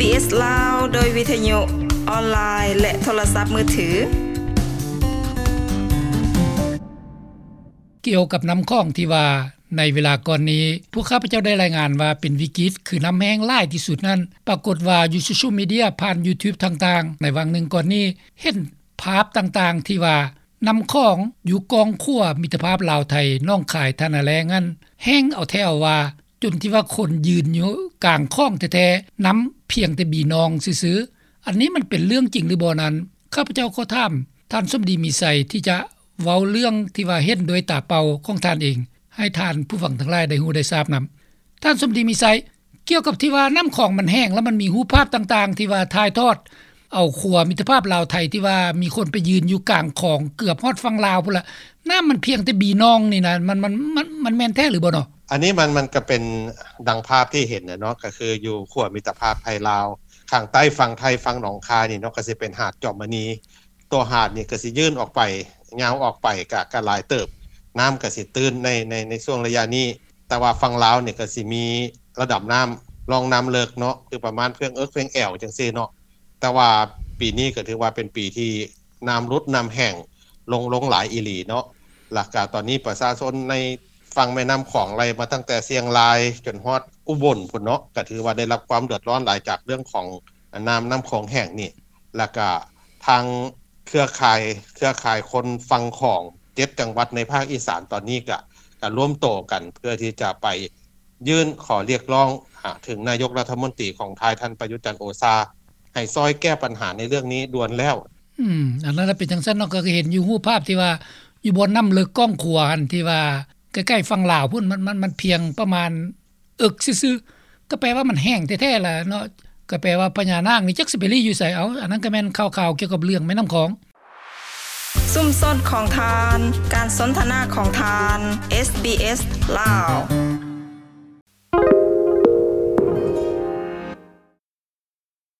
ເອສ ລາວ ໂດຍວິທະຍຸ ອອນລາຍ ແລະ ໂທລະສັບມືຖື. ກ່ຽວກັບນ້ຳຂອງທີ່ວ່າ ໃນເວລາກ່ອນນີ້ ພວກຂ້າພະເຈົ້າໄດ້ລາຍງານວ່າເປັນວິກິດ ຄືນ້ຳແຫ້ງຫຼາຍທີ່ສຸດນັ້ນ, ປາກົດວ່າຢູ່ໂຊຊຽວມີເດຍ ຜ່ານ YouTube ຕ່າງໆ ໃນຫວ່າງໜຶ່ງກ່ອນນີ້ ເຫັນພາບຕ່າງໆ ທີ່ວ່າ ນ້ຳຂອງຢູ່ກ້ອງຂົວມິດຕະພາບລາວໄທ ໜອງຄາຍ ທ່ານາແລ້ງນັ້ນ ແຫ້ງເອົາແທ້ເອົາວ່າ ຈົນທີ່ວ່າຄົນຢືນຢູ່ກາງຂອງແທ້ໆ ນ້ຳພຽງແຕ່ບີນອງຊື່ໆ. ອັນນີ້ມັນເປັນເລື່ອງຈິງຫຼືບໍ່ນັ້ນ ຂ້າພະເຈົ້າຂໍຖາມທ່ານສົມດີມີໄຊ ທີ່ຈະເວົ້າເລື່ອງທີ່ວ່າເຫັນດ້ວຍຕາເປົ່າຂອງທ່ານເອງ ໃຫ້ທ່ານຜູ້ຟັງທັງຫຼາຍໄດ້ຮູ້ໄດ້ຊາບນຳ. ທ່ານສົມດີມີໄຊ, ກ່ຽວກັບທີ່ວ່ານ້ຳຂອງມັນແຫ້ງ ແລ້ວມັນມີຮູບພາບຕ່າງໆ ທີ່ວ່າຖ່າຍທອດເອົາຂົວມິດຕະພາບລາວໄທ ທີ່ວ່າມີຄົນໄປຢືນຢູ່ກາງຂອງເກືອບຮອດຝັ່ງລາວພຸ້ນລະ, ນ້ຳມັນພຽງແຕ່ບີນອງນີ້ນະ ມັນ ມັນ ມັນ ມັນແມ່ນແທ້ຫຼືບໍ່ເນາະ? ອັນນີ້ມັນ ມັນກໍເປັນດັ່ງພາບທີ່ເຫັນນະເນາະ, ກໍຄືຢູ່ຂົວມິດຕະພາບໄທລາວ ຂ້າງໃຕ້ຝັ່ງໄທ ຝັ່ງໜອງຄາຍນີ້ເນາະ ກໍຊິເປັນຫາດຈອມມະນີ. ຕົວຫາດນີ້ກໍຊິຍື່ນອອກໄປ ຍາວອອກໄປ ກະ ກະຫຼາຍເຕີບ, ນ້ຳກໍຊິຕື້ນໃນ ໃນ ໃນຊ່ວງໄລຍະນີ້. ແຕ່ວ່າຝັ່ງລາວນີ້ກໍຊິມີລະດັບນ້ຳ ຮ່ອງນ້ຳເລິກເນາະ ຄືປະມານເພິ່ງເອິກເພິ່ງແອວຈັ່ງຊີ້ເນາະ. ແຕ່ວ່າປີນີ້ກໍຖືວ່າເປັນປີທີ່ນ້ຳຫຼຸດ ນ້ຳແຫ້ງລົງ ລົງຫຼາຍອີ່ຫຼີເນາະ. ແລ້ວກະຕອນນີ້ປະຊາຊົນໃນຝັ່ງແມ່ນ້ຳຂອງ ໄລ່ມາຕັ້ງແຕ່ຊຽງລາຍຈົນຮອດອຸບົນພຸ້ນເນາະ ກໍຖືວ່າໄດ້ຮັບຄວາມເດືອດຮ້ອນຫຼາຍຈາກເລື່ອງຂອງນ້ຳ ນ້ຳຂອງແຫ້ງນີ້. ແລ້ວກະທາງເຄືອຂ່າຍ ເຄືອຂ່າຍຄົນຝັ່ງຂອງເຈັດຈັງຫວັດໃນພາກອີສານຕອນນີ້ກະ ກະລວມໂຕກັນເພື່ອທີ່ຈະໄປຍື່ນຂໍຮຽກຮ້ອງຫາເຖິງນາຍົກລັດຖະມົນຕີຂອງໄທ ທ່ານປະຍຸດ ຈັນໂອຊາ ໃຫ້ຊ່ອຍແກ້ບັນຫາໃນເລື່ອງນີ້ດ່ວນແລ້ວ. ອືມ ອັນນັ້ນລະເປັນຈັ່ງຊັ້ນເນາະ, ກໍເຫັນຢູ່ຮູບພາບທີ່ວ່າຢູ່ບ່ອນນ້ຳເລິກກ້ອງຂົວຫັ້ນ ທີ່ວ່າໃກ້ໆຝັ່ງລາວພຸ້ນ ມັນ ມັນ ມັນພຽງປະມານ ເອິກຊື່ໆ ກໍແປວ່າມັນແຫ້ງແທ້ໆລະເນາະ, ກໍແປວ່າພະຍານາກນີ້ຈັກຊິໄປລີ້ຢູ່ໃສເອົາ. ອັນນັ້ນກໍແມ່ນຂ່າວໆກ່ຽວກັບເລື່ອງແມ່ນ້ຳຂອງ. ຊຸມຊົນຂອງທ່ານ, ການສົນທະນາຂອງທ່ານ, ເອສບີເອສ ລາວ.